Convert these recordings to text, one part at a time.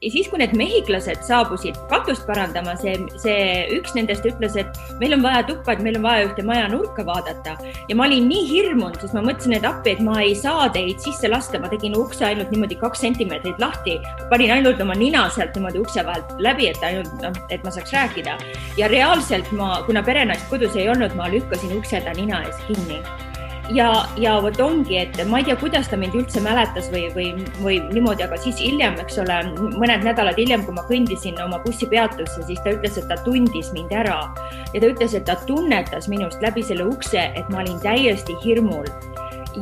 Ja siis, kui need mehhiklased saabusid katust parandama, see üks nendest ütles, et meil on vaja tuppa, et meil on vaja ühte maja nurka vaadata. Ja ma olin nii hirmunud, sest ma mõtlesin, et appi, et ma ei saa teid sisse lasta. Ma tegin ukse ainult niimoodi 2 sentimeetrit lahti. Panin ainult oma nina sealt niimoodi ukse vahelt läbi, et ma saaks rääkida. Ja reaalselt kuna perenaist kodus ei olnud, ma lükkasin ukse ta nina ees kinni. Ja võt ongi, et ma ei tea, kuidas ta mind üldse mäletas või niimoodi, aga siis hiljem, eks ole, mõned nädalad hiljem, kui ma kõndisin oma bussipeatusse, siis ta ütles, et ta tundis mind ära. Ja ta ütles, et ta tunnetas minust läbi selle ukse, et ma olin täiesti hirmul.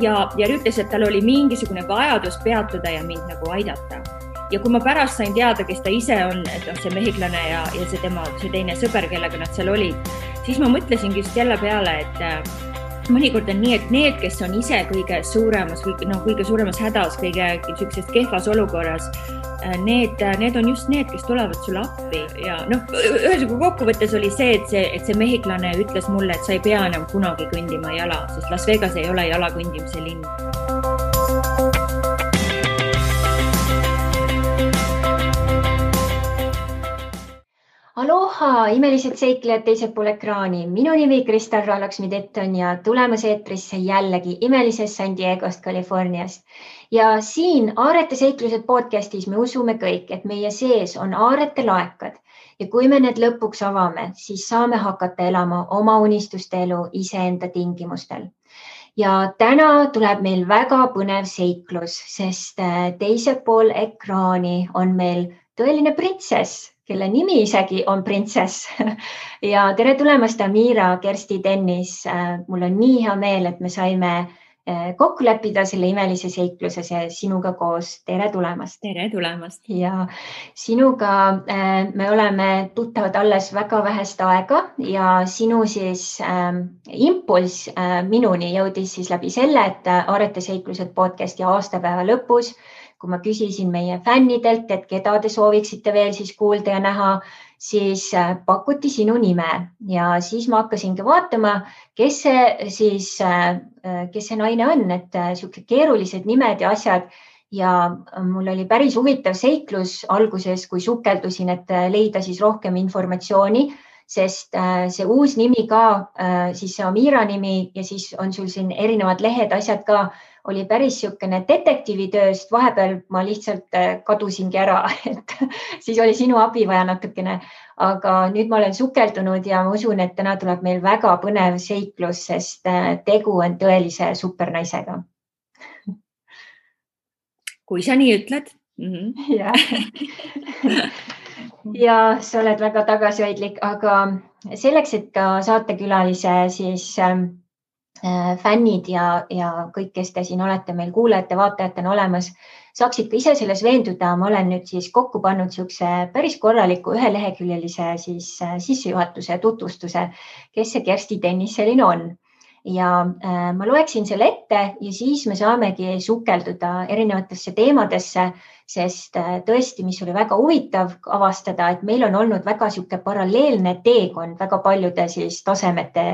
Ja ütles, et tal oli mingisugune vajadus peatuda ja mind nagu aidata. Ja kui ma pärast sain teada, kes ta ise on, et see mehhiklane ja see teine sõber, kellega nad seal olid, siis ma mõtlesingi just jälle peale, et mõnikord on nii, et need, kes on ise kõige suuremas hädas, kõige kehvas olukorras, need on just need, kes tulevad sulle appi. Ja ühesõnaga kokkuvõttes oli see, et see mehhiklane ütles mulle, et sa ei pea enam kunagi kõndima jala, sest Las Vegas ei ole jala kõndimise linn. Aloha, imelised seiklejad teisel pool ekraani. Minu nimi Kristal Raalaksmi-Detton ja tulemas eetrisse jällegi imelisest San Diegost, Californiast. Ja siin Aarete seiklused podcastis me usume kõik, et meie sees on aarete laekad. Ja kui me need lõpuks avame, siis saame hakata elama oma unistuste elu iseenda tingimustel. Ja täna tuleb meil väga põnev seiklus, sest teisel pool ekraani on meil tõeline printsess, kelle nimi isegi on printsess. Ja tere tulemast, Amira, Kersti, Dennis. Mul on nii hea meel, et me saime kokku leppida selle imelise seikluse sinuga koos. Tere tulemast. Tere tulemast. Ja sinuga me oleme tuttavad alles väga vähest aega ja sinu siis impulss minuni jõudis siis läbi selle, et Aarete seiklused podcasti aastapäeva lõpus, kui ma küsisin meie fännidelt, et keda te sooviksite veel siis kuulda ja näha, siis pakuti sinu nime ja siis ma hakkasingi vaatama, kes see naine on, et siuke keerulised nimed ja asjad ja mul oli päris huvitav seiklus alguses, kui sukeldusin, et leida siis rohkem informatsiooni, sest see uus nimi ka, siis see Amira nimi ja siis on sul siin erinevad lehed, asjad ka, oli päris siukene detektiivitööst, vahepeal ma lihtsalt kadusingi ära, et siis oli sinu abi vaja natukene, aga nüüd ma olen sukeldunud ja ma usun, et täna tuleb meil väga põnev seiklus, sest tegu on tõelise supernaisega. Kui sa nii ütled. Ja sa oled väga tagasihoidlik, aga selleks, et ka saatekülalise siis fännid ja kõik, kes te siin olete meil kuulajate, vaatajatena olemas, saaksid ka ise selles veenduda. Ma olen nüüd siis kokku pannud siukse päris korraliku üheleheküljelise siis sissejuhatuse tutvustuse, kes see Kersti Dennis selline on. Ja ma loeksin selle ette ja siis me saamegi sukelduda erinevatesse teemadesse, sest tõesti, mis oli väga huvitav avastada, et meil on olnud väga siuke paralleelne teekond väga paljude siis tasemete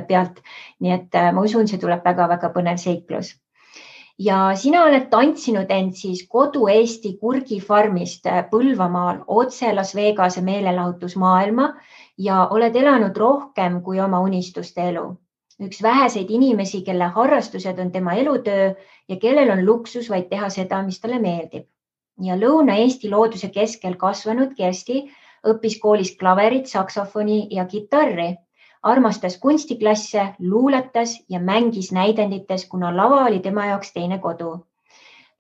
pealt. Nii et ma usun, see tuleb väga-väga põnev seiklus. Ja sina oled tantsinud end siis kodu Eesti kurgifarmist Põlvamaal otse Las Vegase meelelahutusmaailma ja oled elanud rohkem kui oma unistuste elu. Üks väheseid inimesi, kelle harrastused on tema elutöö ja kellel on luksus vaid teha seda, mis talle meeldib. Ja Lõuna-Eesti looduse keskel kasvanud Kersti õppis koolis klaverit, saksofoni ja kitarri. Armastas kunstiklasse, luuletas ja mängis näidendites, kuna lava oli tema jaoks teine kodu.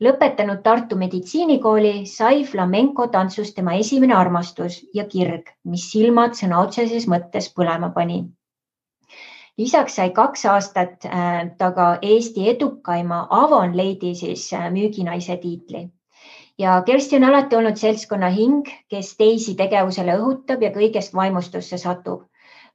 Lõpetanud Tartu meditsiinikooli sai flamenco tantsust tema esimene armastus ja kirg, mis silmad sõna otseses mõttes põlema pani. Lisaks sai 2 aastat taga Eesti edukaima Avon Lady siis müüginaise tiitli. Ja Kersti on alati olnud seltskonna hing, kes teisi tegevusele õhutab ja kõigest vaimustusse satub.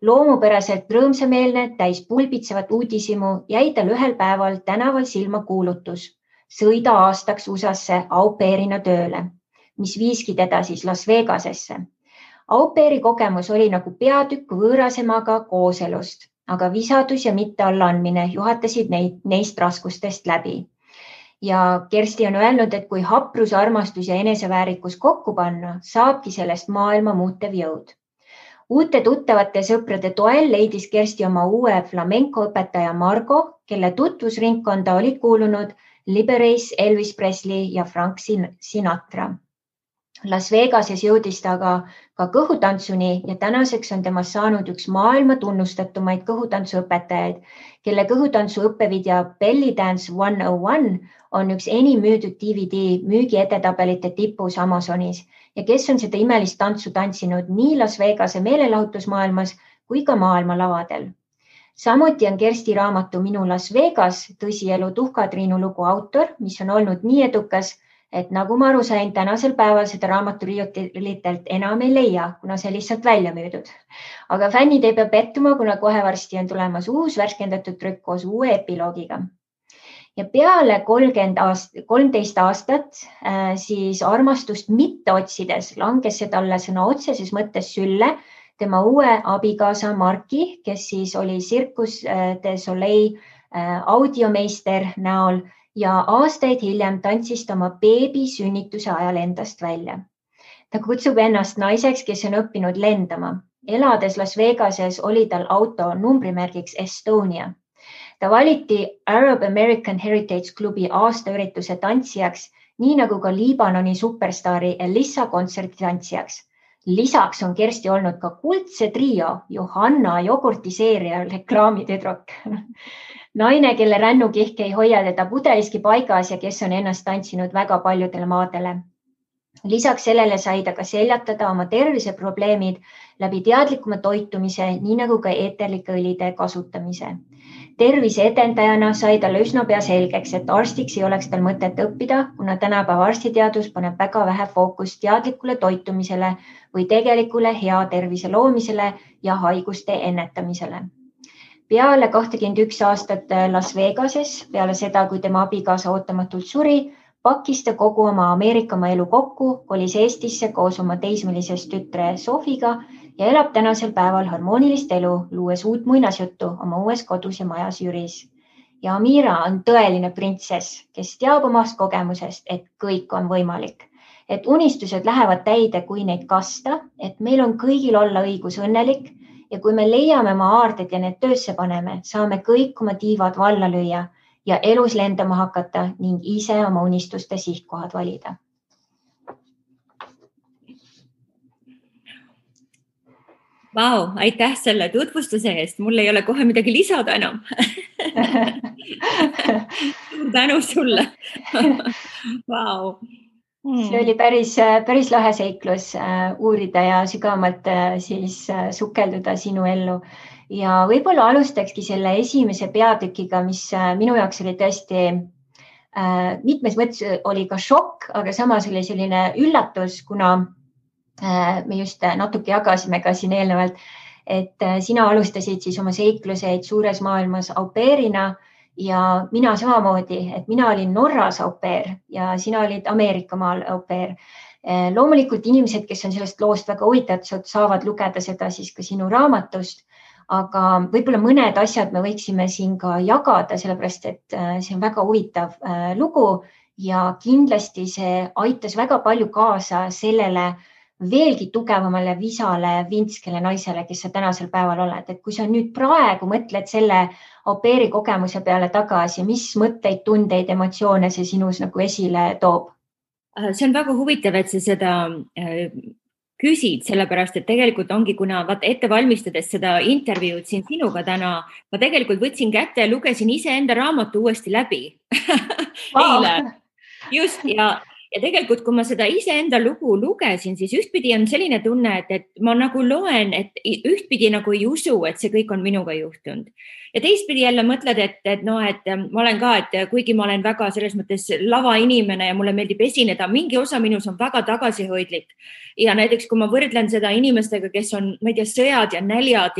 Loomupäraselt rõõmsameelne, täis pulbitsevat uudisimu jäi tal ühel päeval tänaval silma kuulutus. Sõida aastaks USA-sse au pairina tööle, mis viiski teda siis Las Vegasesse. Au pairi kogemus oli nagu peatükk võõrasemaga kooselust, aga visadus ja mitte allaandmine juhatasid neist raskustest läbi. ja Kersti on öelnud, et kui haprus, armastus ja eneseväärikus kokku panna, saabki sellest maailma muutev jõud. Uute tuttavate sõprade toel leidis Kersti oma uue flamenco õpetaja Margo, kelle tutvusringkonda olid kuulunud Liberace, Elvis Presley ja Frank Sinatra. Las Vegases jõudis ta ka kõhutantsuni ja tänaseks on temast saanud üks maailma tunnustatumaid kõhutantsuõpetajaid, kelle kõhutantsu õppevideo Belly Dance 101 on üks enim müüdud DVD müügi edetabelite tipus Amazonis ja kes on seda imelist tantsu tantsinud nii Las Vegase meelelahutusmaailmas kui ka maailma lavadel. Samuti on Kersti raamatu Minu Las Vegas tõsielu Tuhka-Triinu lugu autor, mis on olnud nii edukas, et nagu ma aru sain, tänasel päeval seda raamatu riiulitelt enam ei leia, kuna see lihtsalt välja müüdud. Aga fännid ei pea pettuma, kuna kohe varsti on tulemas uus värskendatud trükk koos uue epiloogiga. Ja peale 13 aastat siis armastust mitte otsides langes see talle sõna otseses mõttes sülle tema uue abikaasa Marki, kes siis oli Circus du Soleil audiomeister näol ja aastaid hiljem tantsis ta oma beebi sünnituse ajal endast välja. Ta kutsub ennast naiseks, kes on õppinud lendama. Elades Las Vegases oli tal auto numbrimärgiks Estonia. Ta valiti Arab American Heritage klubi aastaürituse tantsijaks, nii nagu ka Liibanoni superstaari Elissa kontserti tantsijaks. Lisaks on Kersti olnud ka kuldse trio Johanna jogurtiseeria reklaamitüdruk. Naine, kelle rännukihk ei hoia teda pudeliski paigas ja kes on ennast tantsinud väga paljudele maadele. Lisaks sellele sai ta ka seljatada oma terviseprobleemid läbi teadlikuma toitumise, nii nagu ka eeterlike õlide kasutamise. Tervise edendajana sai talle üsna pea selgeks, et arstiks ei oleks tal mõtet õppida, kuna tänapäeva arstiteadus paneb väga vähe fookust teadlikule toitumisele või tegelikule hea tervise loomisele ja haiguste ennetamisele. Peale 21 aastat Las Vegases, peale seda, kui tema abikaasa ootamatult suri, pakkis ta kogu oma Ameerikamaa elu kokku, kolis Eestisse koos oma teismelisest tütre Sofiga ja elab tänasel päeval harmoonilist elu, luues uut muinasjuttu oma uues kodus ja majas Jüris. Ja Amira on tõeline printsess, kes teab omast kogemusest, et kõik on võimalik. Et unistused lähevad täide, kui neid kasta, et meil on kõigil olla õigus õnnelik ja kui me leiame oma aarded ja need töösse paneme, saame kõik oma tiivad valla lüüa ja elus lendama hakata ning ise oma unistuste sihtkohad valida. Vau, aitäh selle tutvustuse eest. Mul ei ole kohe midagi lisada enam. Suur tänu sulle. Vau. See oli päris lahe seiklus uurida ja sügavamalt siis sukelduda sinu ellu. Ja võib-olla alustakski selle esimese peatükiga, mis minu jaoks oli tõesti mitmes mõttes oli ka šokk, aga samas oli selline üllatus, kuna me just natuke jagasime ka siin eelnevalt, et sina alustasid siis oma seikluseid suures maailmas au pairina ja mina samamoodi, et mina olin Norras au pair ja sina olid Ameerikamaal au pair. Loomulikult inimesed, kes on sellest loost väga huvitatud, saavad lugeda seda siis ka sinu raamatust, aga võib-olla mõned asjad me võiksime siin ka jagada, sellepärast et see on väga huvitav lugu ja kindlasti see aitas väga palju kaasa sellele veelgi tugevamale visale vintskele naisele, kes sa tänasel päeval oled. Et kui sa nüüd praegu mõtled selle au pairi kogemuse peale tagasi, mis mõtteid, tundeid, emotsioone see sinus nagu esile toob? See on väga huvitav, et sa seda küsid, sellepärast, et tegelikult ongi, kuna ette valmistades seda intervjuud siin sinuga täna, ma tegelikult võtsin kätte ja lugesin iseenda raamatu uuesti läbi. Eile. Just ja tegelikult, kui ma seda iseenda lugu lugesin, siis ühtpidi on selline tunne, et ma nagu loen, et ühtpidi nagu ei usu, et see kõik on minuga juhtunud. Ja teistpidi jälle mõtled, et ma olen ka, et kuigi ma olen väga selles mõttes lava inimene ja mulle meeldib esineda, mingi osa minus on väga tagasihoidlik. Ja näiteks, kui ma võrdlen seda inimestega, kes on, ma ei tea, sõjad ja näljad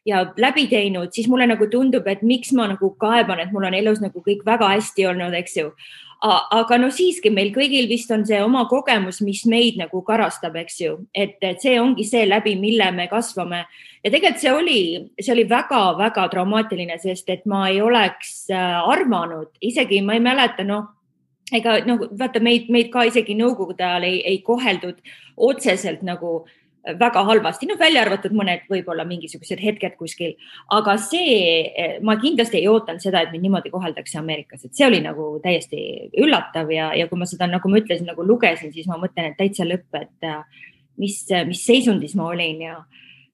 ja läbi teinud, siis mulle nagu tundub, et miks ma nagu kaeban, et mul on elus nagu kõik väga hästi olnud, eks ju. Aga no siiski meil kõigil vist on see oma kogemus, mis meid nagu karastab, eks ju, et see ongi see läbi, mille me kasvame. Ja tegelikult see oli väga-väga traumaatiline, sest et ma ei oleks arvanud, isegi ma ei mäleta, ega nagu vaata meid ka isegi nõukogude ajal ei koheldud otseselt nagu väga halvasti, välja arvatud mõned võib-olla mingisugused hetked kuskil, aga ma kindlasti ei ootanud seda, et mind niimoodi koheldakse Ameerikas, et see oli nagu täiesti üllatav ja kui ma seda, nagu ma ütlesin, nagu lugesin, siis ma mõtlen, et täitsa lõpp, et mis seisundis ma olin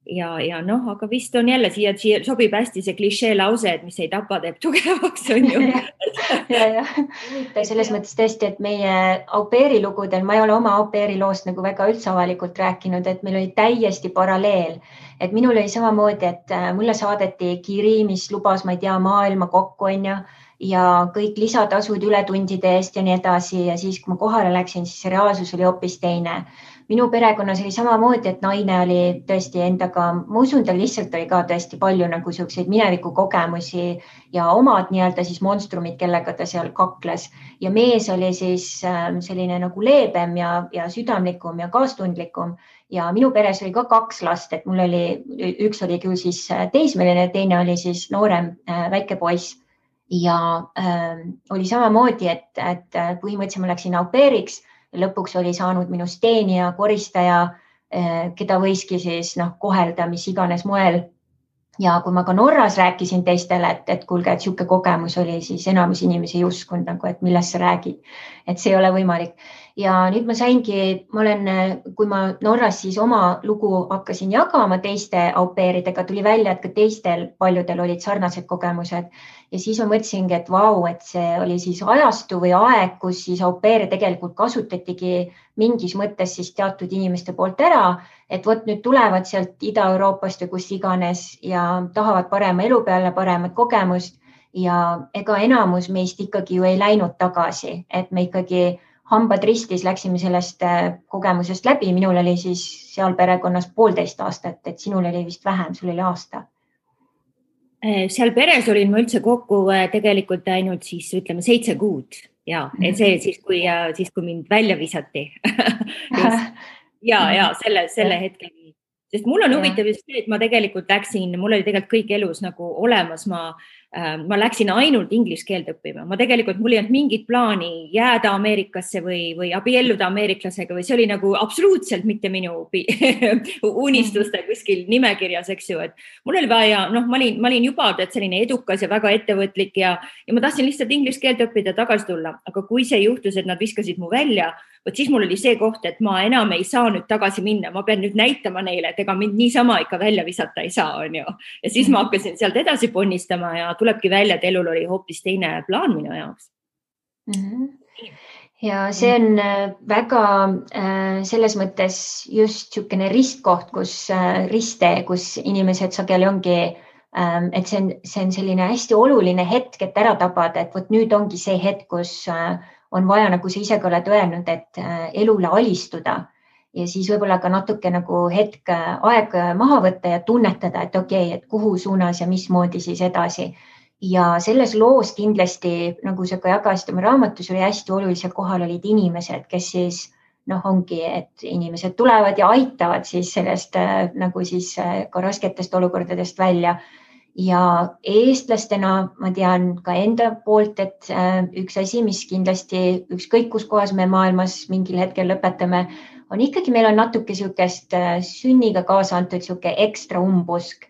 ja noh, aga vist on jälle siia sobib hästi see klišee lause, et mis ei tapa, teeb tugevaks, on ju. ja. Selles mõttes tõesti, et meie au pair'i lugudel, ma ei ole oma au pair'i loost nagu väga üldse avalikult rääkinud, et meil oli täiesti paralleel, et minul oli samamoodi, et mulle saadeti kiri, mis lubas, ma ei tea, maailma kokku, on ju, ja kõik lisatasud ületundide eest ja nii edasi ja siis, kui ma kohale läksin, siis see reaalsus oli hoopis teine. Minu perekonnas oli samamoodi, et naine oli tõesti endaga, ma usun, tal lihtsalt oli ka tõesti palju nagu selliseid minevikukogemusi ja omad nii-öelda siis monstrumid, kellega ta seal kakles ja mees oli siis selline nagu leebem ja südamlikum ja kaastundlikum ja minu peres oli ka 2 last, et mul oli, üks oli küll siis teismeline, teine oli siis noorem väike poiss ja oli samamoodi, et põhimõtteliselt ma läksin au pair'iks. Lõpuks oli saanud minust teenija, koristaja, keda võiski siis kohelda mis iganes moel. Ja kui ma ka Norras rääkisin teistele, et kuulge, et sihuke kogemus oli, siis enamus inimesi ei uskunud nagu, et millest sa räägid, et see ei ole võimalik. Ja nüüd ma saingi, kui ma Norras siis oma lugu hakkasin jagama teiste au pair'idega, tuli välja, et ka teistel paljudel olid sarnased kogemused. Ja siis ma mõtlesingi, et vau, et see oli siis ajastu või aeg, kus siis au pair'e tegelikult kasutatigi mingis mõttes siis teatud inimeste poolt ära, et vot nüüd tulevad sealt Ida-Euroopast või kus iganes ja tahavad parema elu peale, paremat kogemust ja ega enamus meist ikkagi ju ei läinud tagasi, et me ikkagi hambad ristis läksime sellest kogemusest läbi. Minul oli siis seal perekonnas 1,5 aastat, et sinul oli vist vähem, sul oli aasta. Seal peres olin ma üldse kokku tegelikult ainult siis ütleme 7 kuud ja see siis, kui mind välja visati. ja selle hetkeni. Sest mul on huvitav just see, et ma tegelikult läksin, mul oli tegelikult kõik elus nagu olemas, ma läksin ainult inglise keelt õppima. Mul ei olnud mingit plaani jääda Ameerikasse või abielluda ameeriklasega või see oli nagu absoluutselt mitte minu unistuste kuskil nimekirjas, eks ju, et mul oli vaja, ma olin juba selline edukas ja väga ettevõtlik ja ma tahtsin lihtsalt inglise keelt õppida ja tagasi tulla, aga kui see juhtus, et nad viskasid mu välja, võt siis mul oli see koht, et ma enam ei saa nüüd tagasi minna, ma pean nüüd näitama neile, et ega mind niisama ikka välja visata ei saa, on ju. Ja siis ma hakkasin sealt edasi ponnistama ja tulebki välja, et elul oli hoopis teine plaan minu jaoks. Ja see on väga selles mõttes just niisugune ristkoht, kus inimesed sageli ongi, et see on selline hästi oluline hetk, et ära tabada, et vot nüüd ongi see hetk, kus on vaja, nagu sa ise ka oled öelnud, et elule alistuda ja siis võib-olla ka natuke nagu hetk aeg maha võtta ja tunnetada, et okei, et kuhu suunas ja mismoodi siis edasi. Ja selles loos kindlasti, nagu sa ka jagasid oma raamatus, oli hästi olulisel kohal olid inimesed, kes siis ongi, et inimesed tulevad ja aitavad siis sellest nagu siis ka rasketest olukordadest välja. Ja eestlastena ma tean ka enda poolt, et üks asi, mis kindlasti ükskõik kus kohas me maailmas mingil hetkel lõpetame, on ikkagi meil on natuke niisugust sünniga kaasa antud niisugune ekstra umbusk.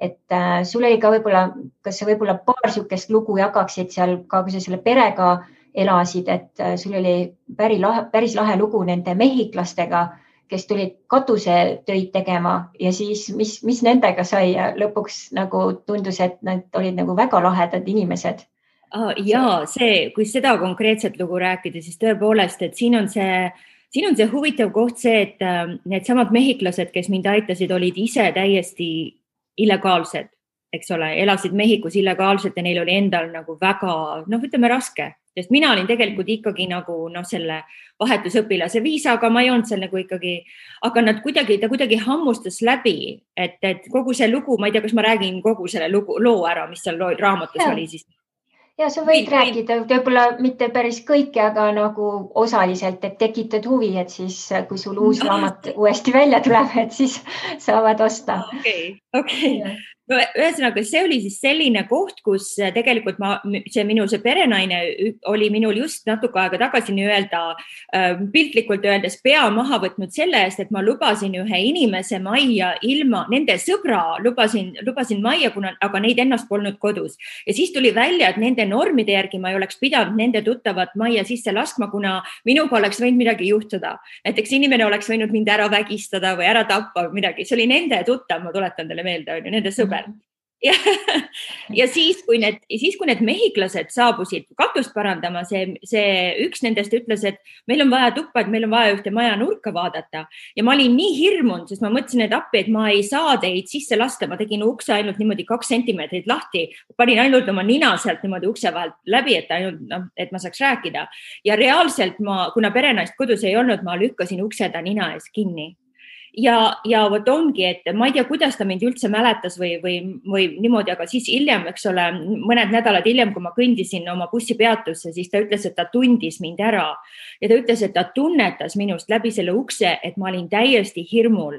Et sul oli ka võib-olla, kas sa võib-olla paar niisugust lugu jagaksid seal ka, kui sa selle perega elasid, et sul oli päris lahe lugu nende mehhiklastega, kes tulid katusetöid tegema ja siis mis nendega sai ja lõpuks nagu tundus, et nad olid nagu väga lahedad inimesed. Ja kui seda konkreetset lugu rääkida, siis tõepoolest, et siin on see huvitav koht see, et need samad mehhiklased, kes mind aitasid, olid ise täiesti illegaalsed, eks ole, elasid Mehhikos illegaalselt ja neil oli endal nagu väga, ütleme raske. Sest mina olin tegelikult ikkagi nagu selle vahetusõpilase viisaga, ma ei olnud seal nagu ikkagi, aga ta kuidagi hammustas läbi, et kogu see lugu, ma ei tea, kas ma räägin kogu selle loo ära, mis seal raamatus oli siis. Ja sa võid rääkida, võib-olla mitte päris kõike, aga nagu osaliselt, et tekitad huvi, et siis kui sul uus raamat uuesti välja tuleb, et siis saavad osta. Okei. ühesõnaga, see oli siis selline koht, kus tegelikult see perenaine oli minul just natuke aega tagasi nii-öelda piltlikult öeldes pea maha võtnud selle eest, et ma lubasin ühe inimese majja ilma, nende sõbra lubasin majja, aga neid ennast polnud kodus. Ja siis tuli välja, et nende normide järgi ma ei oleks pidanud nende tuttavat majja sisse laskma, kuna minuga oleks võinud midagi juhtuda. Näiteks inimene oleks võinud mind ära vägistada või ära tappa või midagi. See oli nende tuttav, ma tuletan teile meelde, nende sõber. Ja siis, kui need mehhiklased saabusid katust parandama, see üks nendest ütles, et meil on vaja tuppa, et meil on vaja ühte maja nurka vaadata. Ja ma olin nii hirmunud, sest ma mõtlesin, et appi, et ma ei saa teid sisse lasta. Ma tegin ukse ainult niimoodi 2 sentimeetrit lahti. Panin ainult oma nina sealt niimoodi ukse vahelt läbi, et ma saaks rääkida. Ja reaalselt kuna perenaist kodus ei olnud, ma lükkasin ukse ta nina ees kinni. Ja vot ongi, et ma ei tea, kuidas ta mind üldse mäletas või niimoodi, aga siis hiljem, eks ole, mõned nädalad hiljem, kui ma kõndisin oma bussipeatusse, siis ta ütles, et ta tundis mind ära ja ta ütles, et ta tunnetas minust läbi selle ukse, et ma olin täiesti hirmul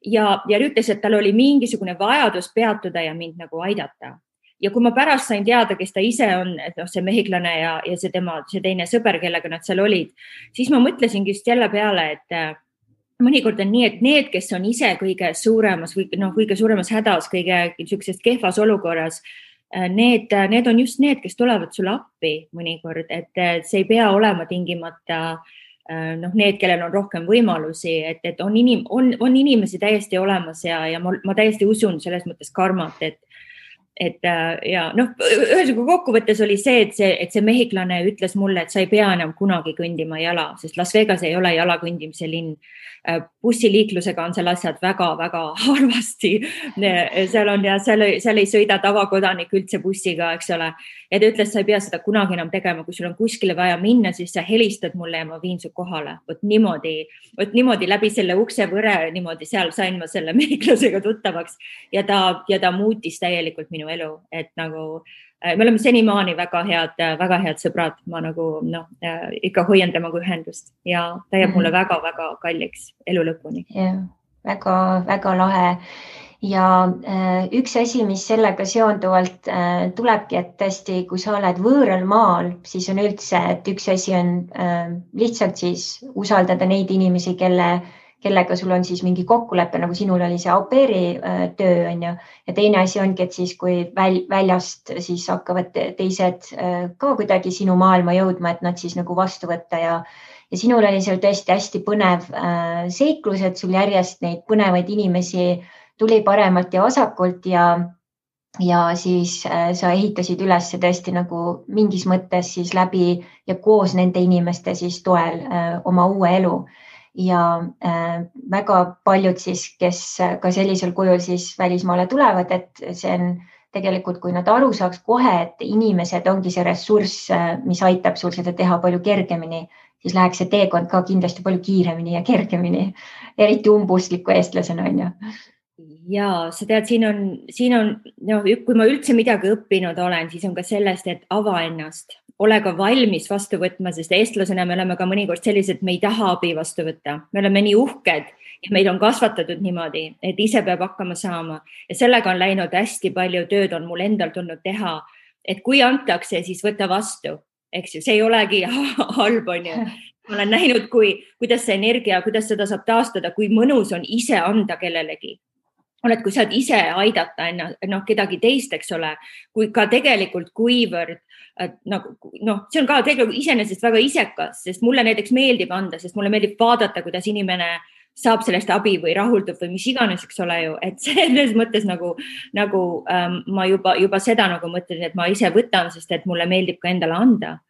ja ütles, et tal oli mingisugune vajadus peatuda ja mind nagu aidata. Ja kui ma pärast sain teada, kes ta ise on, et see mehiklane ja see teine sõber, kellega nad seal olid, siis ma mõtlesingi just jälle peale, et mõnikord on nii, et need, kes on ise kõige suuremas hädas, kõige niisugusest kehvas olukorras, need on just need, kes tulevad sulle appi mõnikord, et see ei pea olema tingimata need, kellel on rohkem võimalusi, et on inimesi täiesti olemas ja ma täiesti usun selles mõttes karmat, ühesõnaga kokkuvõttes oli see, et see mehiklane ütles mulle, et sa ei pea enam kunagi kõndima jala, sest Las Vegas ei ole jala kõndimise linn. Bussiliiklusega on seal asjad väga-väga harvasti. Seal ei sõida tavakodanik üldse bussiga, eks ole. Ja ta ütles, sa ei pea seda kunagi enam tegema, kui sul on kuskile vaja minna, siis sa helistad mulle ja ma viin su kohale. Vot niimoodi läbi selle uksevõre, niimoodi seal sain ma selle mehiklasega tuttavaks ja ta muutis täielikult minu elu, et nagu me oleme senimaani väga head sõbrad, ma ikka hoian temaga ühendust ja ta jääb mulle väga-väga kalliks elu lõpuni. Väga lahe. Ja üks asi, mis sellega seonduvalt tulebki, et tõesti, kui sa oled võõral maal, siis on üldse, et üks asi on lihtsalt siis usaldada neid inimesi, kellega sul on siis mingi kokkulepe, nagu sinul oli see au pair'i töö, on ju. Ja teine asi ongi, et siis kui väljast siis hakkavad teised ka kuidagi sinu maailma jõudma, et nad siis nagu vastu võtta ja sinul oli seal tõesti hästi põnev seiklus, et sul järjest neid põnevaid inimesi tuli paremalt ja vasakult ja siis sa ehitasid üles tõesti nagu mingis mõttes siis läbi ja koos nende inimeste siis toel oma uue elu. Ja väga paljud siis, kes ka sellisel kujul siis välismaale tulevad, et see on tegelikult, kui nad aru saaks kohe, et inimesed ongi see ressurss, mis aitab sul seda teha palju kergemini, siis läheks see teekond ka kindlasti palju kiiremini ja kergemini, eriti umbustliku eestlasena, on ju. Ja sa tead, siin on kui ma üldse midagi õppinud olen, siis on ka sellest, et ava ennast. Ole ka valmis vastu võtma, sest eestlasena me oleme ka mõnikord sellised, et me ei taha abi vastu võtta. Me oleme nii uhked ja meid on kasvatatud niimoodi, et ise peab hakkama saama. Ja sellega on läinud hästi palju tööd, on mul endal tulnud teha, et kui antakse, siis võta vastu. Eks ju, see ei olegi halb, on ju. Ma olen näinud, kuidas see energia, kuidas seda saab taastada, kui mõnus on ise anda kellelegi. Kui saad ise aidata kedagi teist, eks ole, kui ka tegelikult kuivõrd, see on ka tegelikult iseenesest väga isekas, sest mulle näiteks meeldib anda, sest mulle meeldib vaadata, kuidas inimene saab sellest abi või rahuldub või mis iganes, eks ole ju, et selles mõttes nagu ma juba seda nagu mõtlen, et ma ise võtan, sest et mulle meeldib ka endale anda.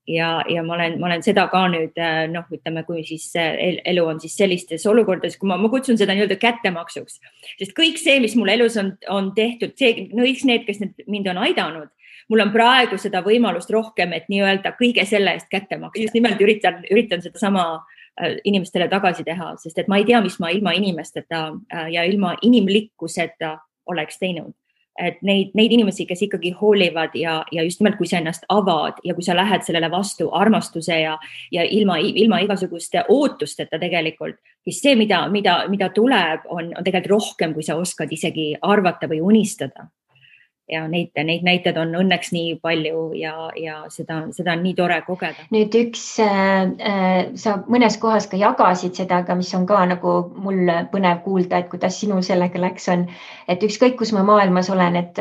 Ja ma olen seda ka nüüd, ütleme, kui siis elu on siis sellistes olukordades, kui ma kutsun seda nii-öelda kättemaksuks, sest kõik see, mis mul elus on tehtud, need, kes mind on aidanud, mul on praegu seda võimalust rohkem, et nii-öelda kõige selle eest kätte maksta. Just nimelt üritan seda sama inimestele tagasi teha, sest et ma ei tea, mis ma ilma inimesteta ja ilma inimlikkuseta oleks teinud. et neid inimesi, kes ikkagi hoolivad ja just nimelt, kui sa ennast avad ja kui sa lähed sellele vastu armastuse ja ilma igasuguste ootusteta tegelikult, siis see, mida tuleb, on tegelikult rohkem, kui sa oskad isegi arvata või unistada. Ja neid näited on õnneks nii palju ja seda on nii tore kogeda. Nüüd sa mõnes kohas ka jagasid seda, aga mis on ka nagu mul põnev kuulda, et kuidas sinul sellega läks on, et ükskõik, kus ma maailmas olen, et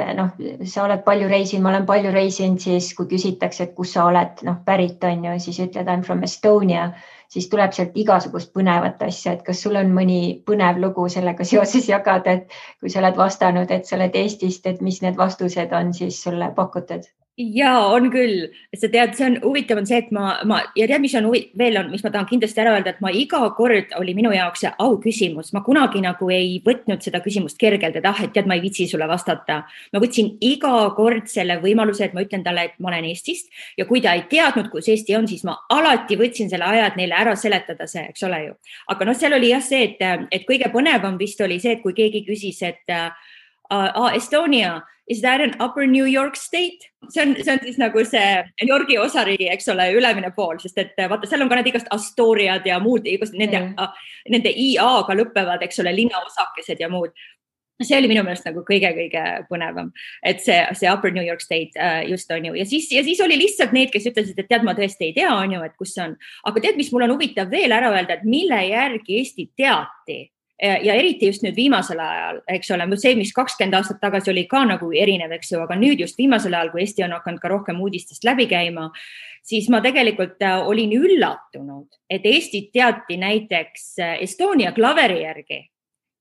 sa oled palju reisinud, ma olen palju reisinud, siis kui küsitakse, et kus sa oled pärit on ju, siis ütled I'm from Estonia, siis tuleb sealt igasugust põnevat asja, et kas sul on mõni põnev lugu sellega seoses jagada, et kui sa oled vastanud, et sa oled Eestist, et mis need vastused on siis sulle pakutud? Ja on küll, sa tead, see on huvitav on see, et ma ja tead, mis ma tahan kindlasti ära öelda, et ma iga kord oli minu jaoks see au küsimus, ma kunagi nagu ei võtnud seda küsimust kergelt, et et tead, ma ei vitsi sulle vastata. Ma võtsin iga kord selle võimaluse, et ma ütlen talle, et ma olen Eestist ja kui ta ei teadnud, kus Eesti on, siis ma alati võtsin selle aja, et neile ära seletada see, eks ole ju. Aga seal oli jah see, et kõige põnevam vist oli see, et kui keegi küsis, et Estonia, is that an upper New York state? See on siis nagu see New Yorgi osariigi, eks ole, ülemine pool, sest et vaata, seal on ka need igast Astoriad ja muud, nende IA-ga lõppevad, eks ole, linnaosakesed ja muud. See oli minu meelest nagu kõige põnevam, et see upper New York state just on ju. Ja siis oli lihtsalt need, kes ütlesid, et tead, ma tõesti ei tea, on ju, et kus see on. Aga tead, mis mul on huvitav veel ära öelda, et mille järgi Eesti teati? Ja eriti just nüüd viimasel ajal, eks ole, see, mis 20 aastat tagasi oli ka nagu erinev, eks ju, aga nüüd just viimasel ajal, kui Eesti on hakanud ka rohkem uudistest läbi käima, siis ma tegelikult olin üllatunud, et Eestit teati näiteks Estonia klaveri järgi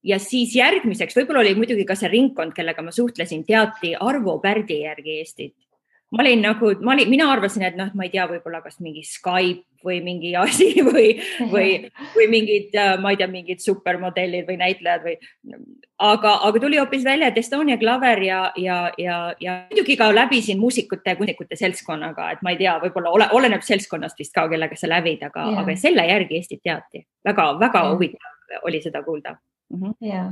ja siis järgmiseks, võib-olla oli muidugi ka see ringkond, kellega ma suhtlesin, teati Arvo Pärdi järgi Eestit. Mina arvasin, et ma ei tea, võib-olla kas mingi Skype või mingi asi või mingid, ma ei tea, mingid supermodellid või näitlejad aga tuli hoopis välja, et Estonia klaver ja muidugi ka läbisin muusikute seltskonnaga, et ma ei tea, võib-olla oleneb seltskonnast vist ka, kellega sa lävid, aga selle järgi Eestit teati. Väga huvitav oli seda kuulda. Ja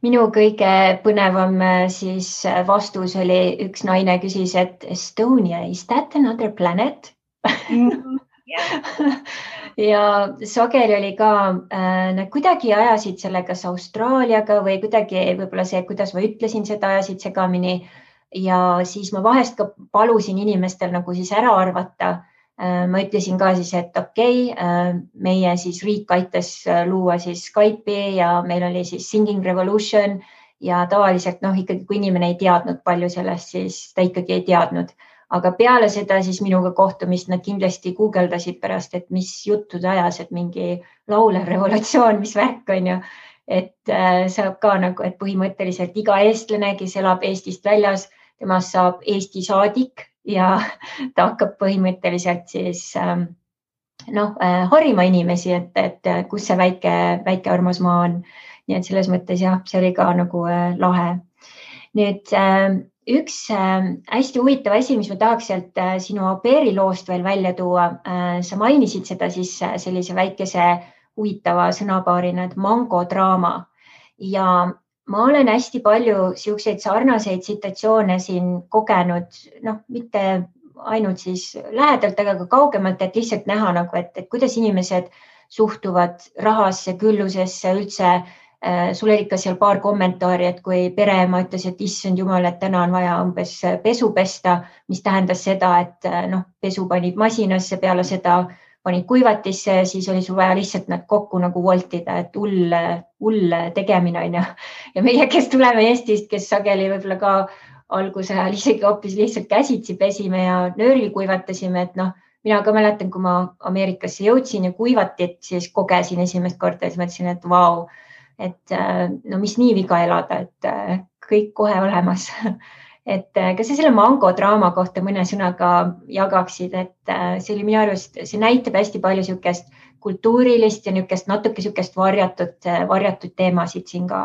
minu kõige põnevam siis vastus oli, üks naine küsis, et Estonia, is that another planet? Ja sageli oli ka, nad kuidagi ajasid selle kas Austraaliaga või kuidagi võib-olla see, kuidas ma ütlesin seda, ajasid segamini ja siis ma vahest ka palusin inimestel nagu siis ära arvata. Ma ütlesin ka siis, et meie siis riik aitas luua siis Skype'i ja meil oli siis Singing Revolution ja tavaliselt ikkagi, kui inimene ei teadnud palju sellest, siis ta ikkagi ei teadnud. Aga peale seda siis minuga kohtumist nad kindlasti guugeldasid pärast, et mis juttude ajas, et mingi laulev revolutsioon, mis värk on ju. Et saab ka nagu, et põhimõtteliselt iga eestlane, kes elab Eestist väljas, temast saab Eesti saadik ja ta hakkab põhimõtteliselt siis harima inimesi, et kus see väike armas maa on. Nii et selles mõttes jah, see oli ka nagu lahe. Nüüd üks hästi huvitav asi, mis ma tahaks sealt sinu au pairi loost veel välja tuua. Sa mainisid seda siis sellise väikese huvitava sõnapaarina, et mangodraama ja ma olen hästi palju siukseid sarnaseid situatsioone siin kogenud, mitte ainult siis lähedalt, aga ka kaugemalt, et lihtsalt näha nagu, et kuidas inimesed suhtuvad rahasse, küllusesse üldse. Sul oli ikka seal paar kommentaari, et kui pereema ütles, et issand jumal, et täna on vaja umbes pesu pesta, mis tähendas seda, et pesu panid masinasse, peale seda panid kuivatisse, siis oli sul vaja lihtsalt nad kokku nagu voltida, et hull tegemine on. Ja meie, kes tuleme Eestist, kes sageli võib-olla ka alguse ajal isegi hoopis lihtsalt käsitsi pesime ja nööril kuivatasime, et mina ka mäletan, kui ma Ameerikasse jõudsin ja kuivatit, siis kogesin esimest korda ja siis mõtlesin, et vau, et mis nii viga elada, et kõik kohe olemas. Et kas sa selle mangodraama kohta mõne sõnaga jagaksid, et see oli minu arust, see näitab hästi palju siukest kultuurilist ja natuke siukest varjatud teemasid siin ka.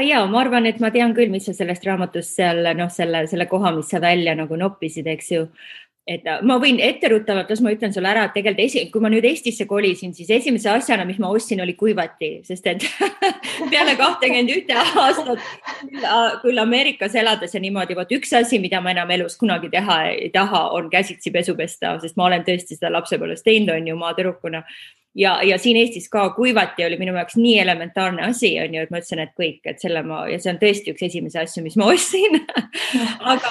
Ja, ma arvan, et ma tean küll, mis sa sellest raamatust seal, selle koha, mis sa välja nagu noppisid, eks ju. et ma võin etteruttavalt, las ma ütlen sulle ära, et tegelikult kui ma nüüd Eestisse kolisin, siis esimese asjana, mis ma ostsin, oli kuivati, sest et peale 21 aastat küll Ameerikas elades ja niimoodi, vot üks asi, mida ma enam elus kunagi teha ei taha, on käsitsi pesu pesta, sest ma olen tõesti seda lapsepõlves teinud, on ju, maatüdrukuna. Ja siin Eestis ka kuivati oli minu jaoks nii elementaarne asi, on ju, et ma ütlesin, et kõik, et ja see on tõesti üks esimese asju, mis ma ostsin. Aga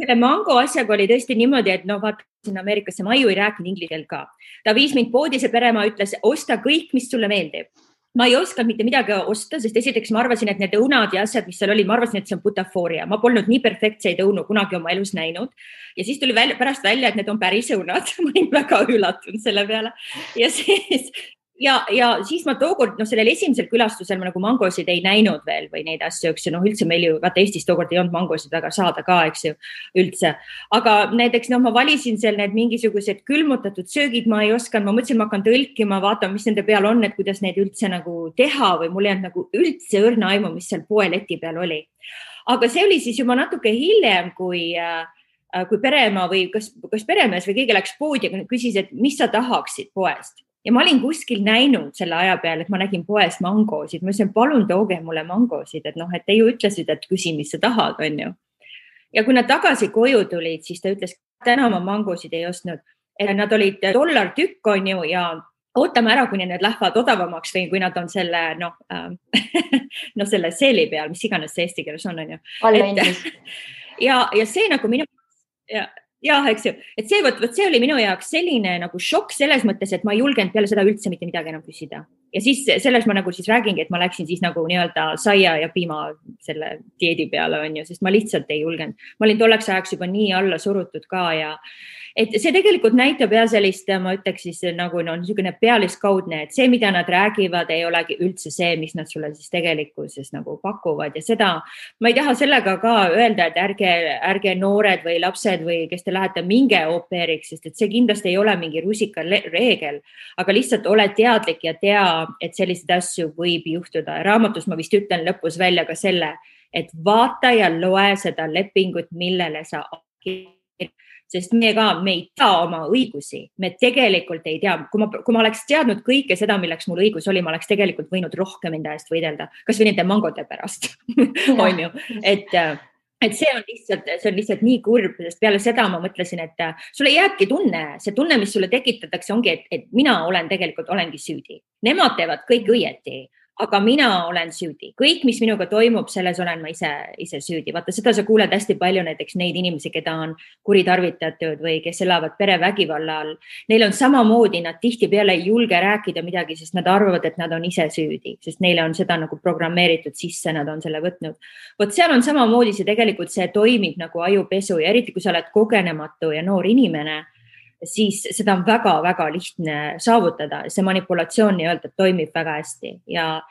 selle mango asjaga oli tõesti niimoodi, et vaata sinna Ameerikasse, ma ju ei rääkinud inglise keelt ka. Ta viis mind poodi, see peremaa ütles, osta kõik, mis sulle meeldib. Ma ei osanud mitte midagi osta, sest esiteks ma arvasin, et need õunad ja asjad, mis seal oli, ma arvasin, et see on butafooria. Ma polnud nii perfektseid õunu kunagi oma elus näinud. Ja siis tuli pärast välja, et need on päris õunad. Ma olin väga üllatunud selle peale. Ja siis ma tookord, sellel esimesel külastusel ma nagu mangosid ei näinud veel või neid asju, eks ju, üldse meil ju, vaata Eestis tookord ei olnud mangosid väga saada ka, eks ju, üldse. Aga näiteks, ma valisin seal need mingisugused külmutatud söögid, ma ei osanud, ma mõtlesin, ma hakkan tõlkima, vaatama, mis nende peal on, et kuidas neid üldse nagu teha või mul ei olnud nagu üldse õrna aimu, mis seal poeleti peal oli. Aga see oli siis juba natuke hiljem, kui peremaa või kas peremees või keegi läks poodi ja küsis, et mis sa tahaksid poest. Ja ma olin kuskil näinud selle aja peale, et ma nägin poest mangosid. Ma ütlesin, palun tooge mulle mangosid, et et te ju ütlesid, et küsi, mis sa tahad, on ju. Ja kui nad tagasi koju tulid, siis ta ütles, täna ma mangosid ei ostnud. Nad olid $1 tükk, on ju, ja ootame ära, kuni need lähevad odavamaks või kui nad on selle, selle seeli peal, mis iganes see eesti keeles on ju. Ja see nagu minu... Ja, eks ju, et see oli minu jaoks selline nagu šokk selles mõttes, et ma ei julgenud peale seda üldse mitte midagi enam küsida. Ja siis selles ma nagu siis räägingi, et ma läksin siis nagu nii-öelda saia ja piima selle dieedi peale, on ju, sest ma lihtsalt ei julgenud. Ma olin tolleks ajaks juba nii alla surutud ka ja et see tegelikult näitab ja sellist, ma ütleks siis nagu niisugune pealiskaudne, et see, mida nad räägivad, ei olegi üldse see, mis nad sulle siis tegelikkuses nagu pakuvad ja seda, ma ei taha sellega ka öelda, et ärge noored või lapsed või kes te lähete minge au pairiks, sest et see kindlasti ei ole mingi rusika reegel, aga lihtsalt ole teadlik ja tea, et selliseid asju võib juhtuda. Raamatus ma vist ütlen lõpus välja ka selle, et vaata ja loe seda lepingut, millele sa sest me ei tea oma õigusi, me tegelikult ei tea. Kui ma oleks teadnud kõike seda, milleks mul õigus oli, ma oleks tegelikult võinud rohkem enda eest võidelda, kas või nende mangode pärast, on ju. Et see on lihtsalt nii kurb, sest peale seda ma mõtlesin, et sulle jääbki see tunne, mis sulle tekitatakse, ongi, et mina olengi süüdi. Nemad teevad kõik õieti. Aga mina olen süüdi. Kõik, mis minuga toimub, selles olen ma ise süüdi. Vaata, seda sa kuuled hästi palju näiteks neid inimesi, keda on kuritarvitatud või kes elavad perevägivalla all. Neil on samamoodi, nad tihtipeale ei julge rääkida midagi, sest nad arvavad, et nad on ise süüdi, sest neile on seda nagu programmeeritud sisse, nad on selle võtnud. Vot seal on samamoodi see toimib nagu ajupesu ja eriti, kui sa oled kogenematu ja noor inimene, siis seda on väga-väga lihtne saavutada. See manipulatsioon nii-öelda toimib väga hästi. Ja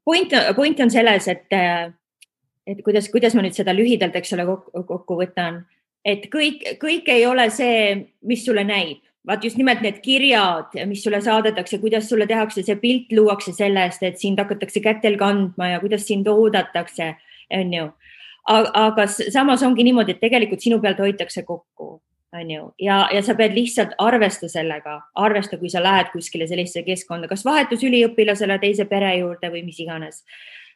point on selles, et kuidas ma nüüd seda lühidalt, eks ole, kokku võtan, et kõik ei ole see, mis sulle näib. Vaat just nimelt need kirjad, mis sulle saadetakse, kuidas sulle tehakse, see pilt luuakse sellest, et sind hakatakse kätel kandma ja kuidas sind oodatakse, on ju. Aga samas ongi niimoodi, et tegelikult sinu pealt hoitakse kokku. Ja sa pead lihtsalt arvesta sellega, kui sa lähed kuskile sellisesse keskkonda, kas vahetus üliõpilasele teise pere juurde või mis iganes.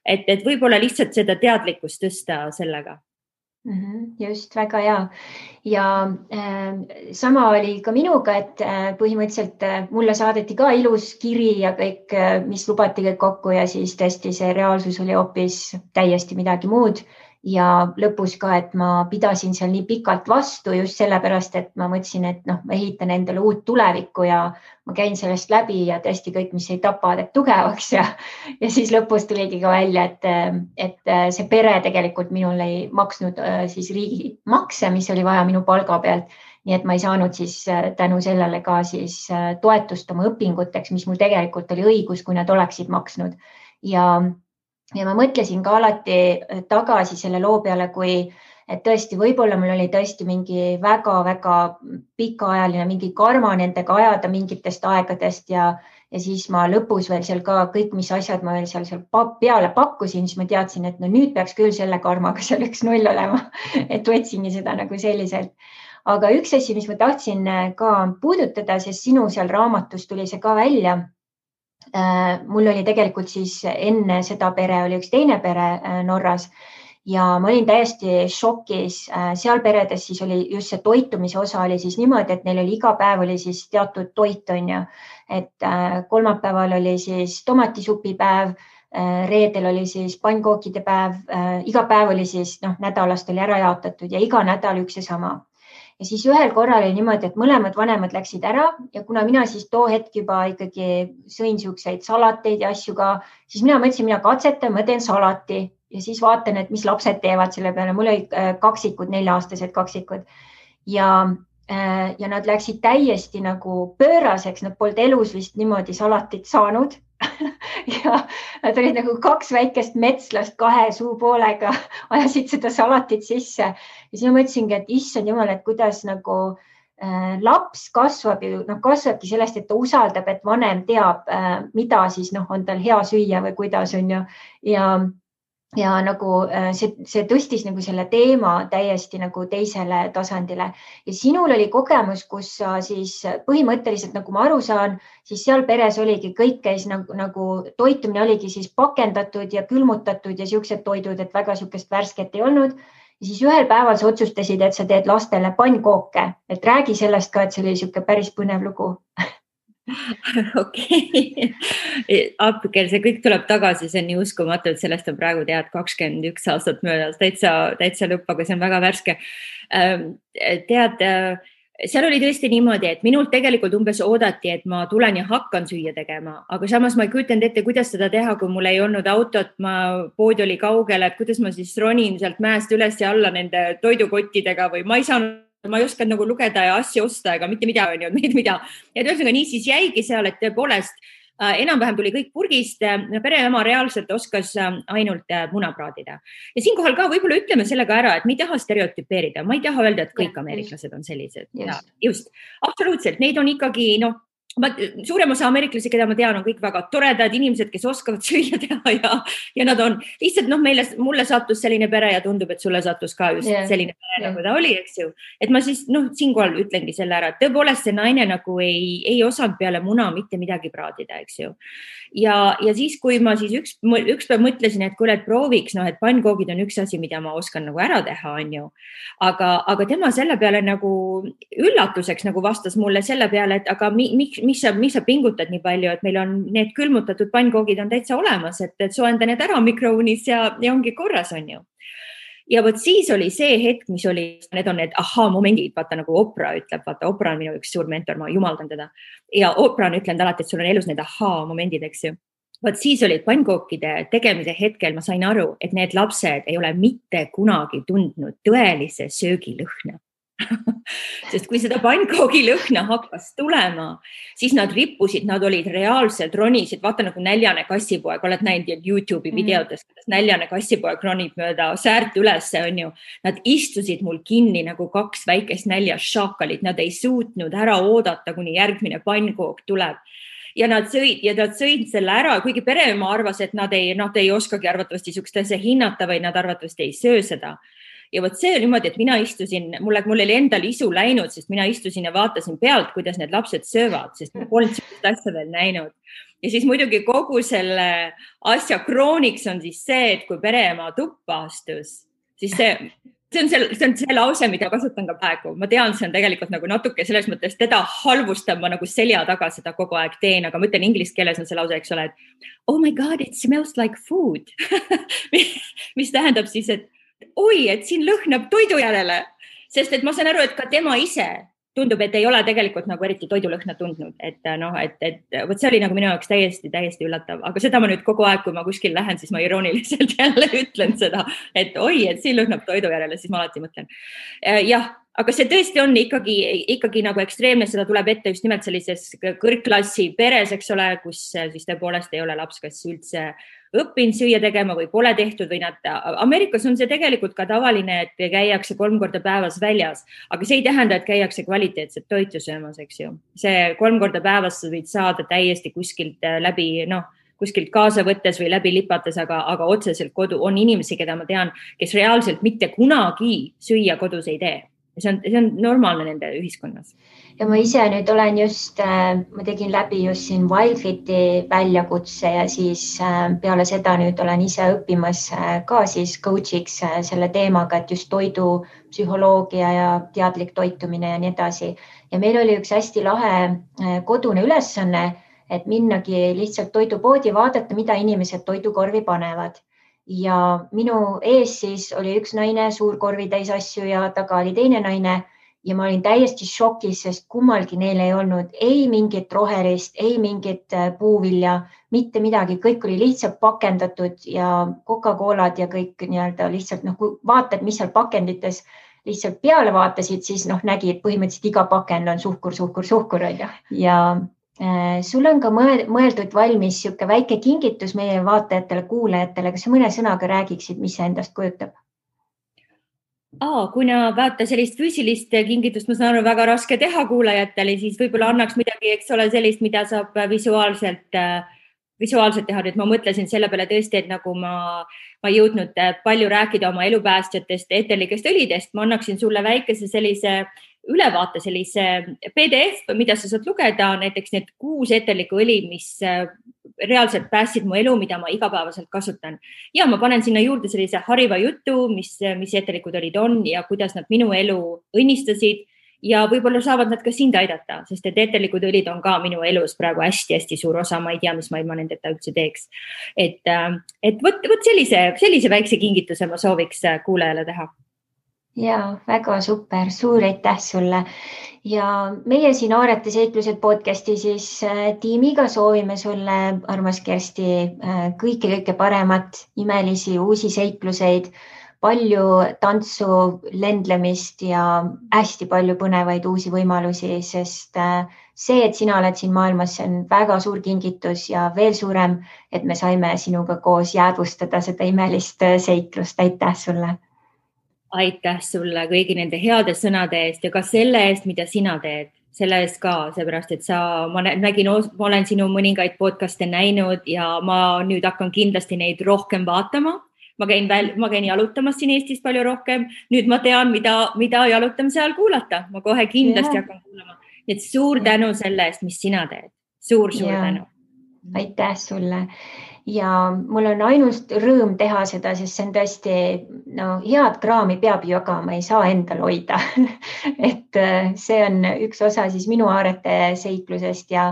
Et võib-olla lihtsalt seda teadlikkust tõsta sellega. Just, väga hea. Ja sama oli ka minuga, et põhimõtteliselt mulle saadeti ka ilus kiri ja kõik, mis lubati kõik kokku ja siis tõesti see reaalsus oli hoopis täiesti midagi muud. Ja lõpus ka, et ma pidasin seal nii pikalt vastu just sellepärast, et ma mõtlesin, et ma ehitan endale uut tulevikku ja ma käin sellest läbi ja tõesti kõik, mis ei tapa, teeb tugevaks ja siis lõpus tuligi ka välja, et see pere tegelikult minul ei maksnud siis riigi makse, mis oli vaja minu palga pealt. Nii et ma ei saanud siis tänu sellele ka siis toetust oma õpinguteks, mis mul tegelikult oli õigus, kui nad oleksid maksnud. Ja ma mõtlesin ka alati tagasi selle loo peale, et tõesti, võib-olla mul oli tõesti mingi väga-väga pikaajaline mingi karma nendega ajada mingitest aegadest ja ja siis ma lõpus veel seal ka kõik, mis asjad ma veel seal peale pakkusin, siis ma teadsin, et no nüüd peaks küll selle karmaga seal 1-0 olema, et võtsingi seda nagu selliselt. Aga üks asi, mis ma tahtsin ka puudutada, sest sinu seal raamatus tuli see ka välja. Mul oli tegelikult siis enne seda pere oli üks teine pere Norras ja ma olin täiesti šokis. Seal peredes siis oli just see toitumise osa oli siis niimoodi, et neil oli iga päev oli siis teatud toit on ju, et kolmapäeval oli siis tomatisupipäev, reedel oli siis pannkookide päev, iga päev oli siis nädalast oli ära jaotatud ja iga nädal üks ja sama. Ja siis ühel korral oli niimoodi, et mõlemad vanemad läksid ära ja kuna mina siis too hetk juba ikkagi sõin siukseid salateid ja asju ka, siis mina mõtlesin, mina katsetan, ma teen salati ja siis vaatan, et mis lapsed teevad selle peale. Mul olid kaksikud, 4-aastased kaksikud ja nad läksid täiesti nagu pööraseks, nad polnud elus vist niimoodi salatit saanud. Ja nad olid nagu 2 väikest metslast 2 suupoolega, ajasid seda salatit sisse ja siis ma mõtlesingi, et issand jumal, et kuidas nagu laps kasvab ju, kasvabki sellest, et ta usaldab, et vanem teab, mida siis on tal hea süüa või kuidas on ju ja nagu see tõstis nagu selle teema täiesti nagu teisele tasandile ja sinul oli kogemus, kus sa siis põhimõtteliselt, nagu ma aru saan, siis seal peres oligi kõik käis nagu toitumine oligi siis pakendatud ja külmutatud ja siuksed toidud, et väga siukest värsket ei olnud. Ja siis ühel päeval sa otsustasid, et sa teed lastele pannkooke, et räägi sellest ka, et see oli siuke päris põnev lugu. Okei. Appikel, see kõik tuleb tagasi, see on nii uskumatu, et sellest on praegu 21 aastat möödas, täitsa lõpp, aga see on väga värske. Seal oli tõesti niimoodi, et minult tegelikult umbes oodati, et ma tulen ja hakkan süüa tegema, aga samas ma ei kujutanud ette, kuidas seda teha, kui mul ei olnud autot, pood oli kaugel, et kuidas ma siis ronin sealt mäest üles ja alla nende toidukottidega või ma ei osanud nagu lugeda ja asju osta ega mitte midagi, mida. Ja tõusega nii siis jäigi seal, et tõepoolest enam-vähem tuli kõik purgist. Pereema reaalselt oskas ainult muna praadida. Ja siinkohal ka võib-olla ütleme sellega ära, et me ei taha stereotüpeerida. Ma ei taha öelda, et kõik ameeriklased on sellised. Just. Absoluutselt. Neid on ikkagi, suurem osa ameeriklasi, keda ma tean, on kõik väga toredad inimesed, kes oskavad süüa teha ja nad on lihtsalt, mulle sattus selline pere ja tundub, et sulle sattus ka just selline pere, nagu ta oli, eks ju. Et ma siis, siinkohal ütlengi selle ära, et tõepoolest see naine nagu ei osanud peale muna mitte midagi praadida, eks ju. Ja siis, kui ma siis üks päev mõtlesin, et kuule, et prooviks, et pannkoogid on üks asi, mida ma oskan nagu ära teha, on ju. Aga tema selle peale nagu üllatuseks nagu vastas mulle selle peale, et aga miks sa pingutad nii palju, et meil on need külmutatud pannkoogid on täitsa olemas, et soenda need ära mikroonis ja ongi korras, on ju. Ja võt siis oli see hetk, mis oli, need on need momendid, vaata nagu Oprah ütleb, vaata Oprah on minu üks suur mentor, ma jumaldan teda. Ja Oprah on ütlenud alati, et sul on elus need momendid, eks ju. Võt siis oli pannkookide tegemise hetkel, ma sain aru, et need lapsed ei ole mitte kunagi tundnud tõelise söögilõhna. Sest kui seda pannkoogi lõhna hakkas tulema, siis nad rippusid, nad olid reaalselt ronisid, vaata nagu näljane kassipoeg, oled näinud YouTube'i videotes, näljane kassipoeg ronib mööda säärt ülesse, on ju. Nad istusid mul kinni nagu 2 väikest näljast šakalit, nad ei suutnud ära oodata, kuni järgmine pannkook tuleb. Ja nad sõid selle ära, kuigi pereema arvas, et nad ei oskagi arvatavasti sukst asja hinnata või nad arvatavasti ei söö seda. Ja võt see oli niimoodi, et mina istusin, mul oli endal isu läinud, sest mina istusin ja vaatasin pealt, kuidas need lapsed söövad, sest ma polnud sellist asja veel näinud. Ja siis muidugi kogu selle asja krooniks on siis see, et kui pereema tuppa astus, siis see on see lause, mida kasutan ka praegu. Ma tean, see on tegelikult nagu natuke selles mõttes, teda halvustab, ma nagu selja taga seda kogu aeg teen, aga ma ütlen inglise keeles on see lause, eks ole, et oh my god, it smells like food. Mis tähendab siis, et oi, et siin lõhnab toidu järele, sest et ma saan aru, et ka tema ise tundub, et ei ole tegelikult nagu eriti toidulõhna tundnud, et võt see oli nagu minu jaoks täiesti üllatav, aga seda ma nüüd kogu aeg, kui ma kuskil lähen, siis ma irooniliselt jälle ütlen seda, et oi, et siin lõhnab toidu järele, siis ma alati mõtlen. Jah, aga see tõesti on ikkagi nagu ekstreemne, seda tuleb ette just nimelt sellises kõrgklassi peres, eks ole, kus siis tõepoolest ei ole laps kas üldse õppinud süüa tegema või pole tehtud või Ameerikas on see tegelikult ka tavaline, et käiakse 3 korda päevas väljas, aga see ei tähenda, et käiakse kvaliteetset toitu söömas, eks ju. See 3 korda päevas võid saada täiesti kuskilt kuskilt kaasa võttes või läbi lipates, aga otseselt kodu on inimesi, keda ma tean, kes reaalselt mitte kunagi süüa kodus ei tee. See on normaalne nende ühiskonnas. Ja ma ise nüüd olen ma tegin läbi just siin Wildfiti väljakutse ja siis peale seda nüüd olen ise õppimas ka siis coach'iks selle teemaga, et just toidu psühholoogia ja teadlik toitumine ja nii edasi. Ja meil oli üks hästi lahe kodune ülesanne, et minnagi lihtsalt toidupoodi vaadata, mida inimesed toidukorvi panevad. Ja minu ees siis oli üks naine, suur korvi täis asju ja taga oli teine naine ja ma olin täiesti šokis, sest kummalgi neil ei olnud ei mingit rohelist, ei mingit puuvilja, mitte midagi. Kõik oli lihtsalt pakendatud ja Coca-Colad ja kõik nii-öelda lihtsalt, kui vaatad, mis seal pakendites lihtsalt peale vaatasid, siis nägid põhimõtteliselt iga pakend on suhkur. Ja sul on ka mõeldud valmis siuke väike kingitus meie vaatajatele, kuulajatele, kas sa mõne sõnaga räägiksid, mis see endast kujutab? Kuna vaata sellist füüsilist kingitust, ma saan aru, väga raske teha kuulajatele, siis võib-olla annaks midagi, eks ole, sellist, mida saab visuaalselt teha. Nüüd ma mõtlesin selle peale tõesti, et nagu ma ei jõudnud palju rääkida oma elupäästjatest, eterlikest õlidest, ma annaksin sulle väikese sellise ülevaate, sellise PDF, mida sa saad lugeda, näiteks need 6 eterlikku õli, mis reaalselt päästsid mu elu, mida ma igapäevaselt kasutan. Ja ma panen sinna juurde sellise hariva jutu, mis eterlikud õlid on ja kuidas nad minu elu õnnistasid ja võib-olla saavad nad ka sind aidata, sest et eterlikud õlid on ka minu elus praegu hästi-hästi suur osa, ma ei tea, mis ma ilma nendeta üldse teeks. Et võt sellise väikse kingituse ma sooviks kuulajale teha. Ja, väga super, suur aitäh sulle. Ja meie siin Aarete seiklused podcasti siis tiimiga soovime sulle, armas Kersti, kõike paremat, imelisi uusi seikluseid, palju tantsu, lendlemist ja hästi palju põnevaid uusi võimalusi, sest see, et sina oled siin maailmas, see on väga suur kingitus ja veel suurem, et me saime sinuga koos jäädvustada seda imelist seiklust. Aitäh sulle! Aitäh sulle kõigi nende heade sõnade eest ja ka selle eest, mida sina teed. Selle eest ka, seepärast, et ma olen sinu mõningaid podcaste näinud ja ma nüüd hakkan kindlasti neid rohkem vaatama. Ma käin jalutamas siin Eestis palju rohkem. Nüüd ma tean, mida jalutamise ajal kuulata. Ma kohe kindlasti hakkan kuulama. Nii et suur tänu selle eest, mis sina teed. Suur tänu. Aitäh sulle. Ja mul on ainult rõõm teha seda, sest see on tõesti, head kraami peab jagama, ei saa endal hoida. Et see on üks osa siis minu Aarete seiklusest ja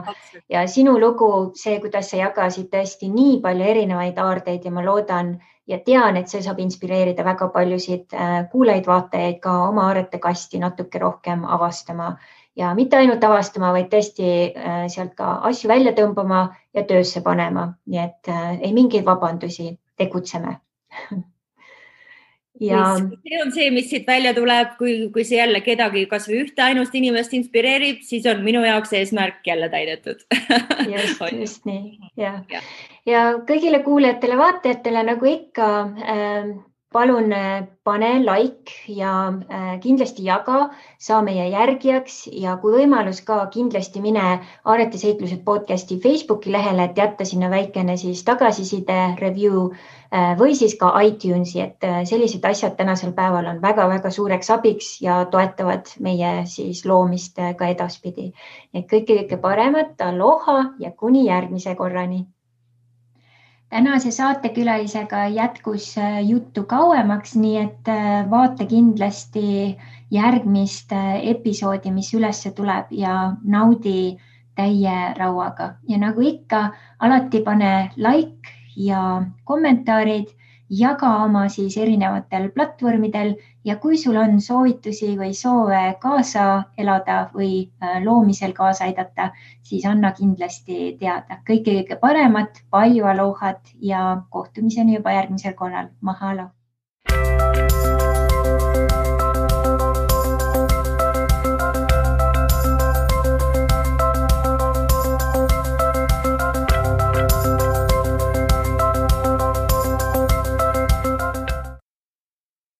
sinu lugu, see, kuidas sa jagasid tõesti nii palju erinevaid aardeid ja ma loodan ja tean, et see saab inspireerida väga paljusid kuulajaid, vaatajaid ka oma Aarete kasti natuke rohkem avastama. Ja mitte ainult avastama, vaid tõesti sealt ka asju välja tõmbama ja töösse panema. Nii et ei mingeid vabandusi, tegutseme. Ja see on see, mis siit välja tuleb, kui see jälle kedagi kas või ühte ainust inimest inspireerib, siis on minu jaoks eesmärk jälle täidetud. Just nii. Ja kõigile kuulajatele, vaatajatele nagu ikka, palun pane like ja kindlasti jaga, saa meie järgijaks ja kui võimalus ka kindlasti mine Aarete seiklused podcasti Facebooki lehele, et jätta sinna väikene siis tagasiside, review või siis ka iTunesi, et sellised asjad tänasel päeval on väga-väga suureks abiks ja toetavad meie siis loomist ka edaspidi. Et kõike paremat, aloha ja kuni järgmise korrani. Tänase saatekülalisega jätkus juttu kauemaks, nii et vaata kindlasti järgmist episoodi, mis üles tuleb ja naudi täie rauaga. Ja nagu ikka, alati pane like ja kommentaarid, jaga oma siis erinevatel platvormidel ja kui sul on soovitusi või soove kaasa elada või loomisel kaasa aidata, siis anna kindlasti teada. Kõike paremat, palju alohat ja kohtumiseni juba järgmisel korral. Mahalo!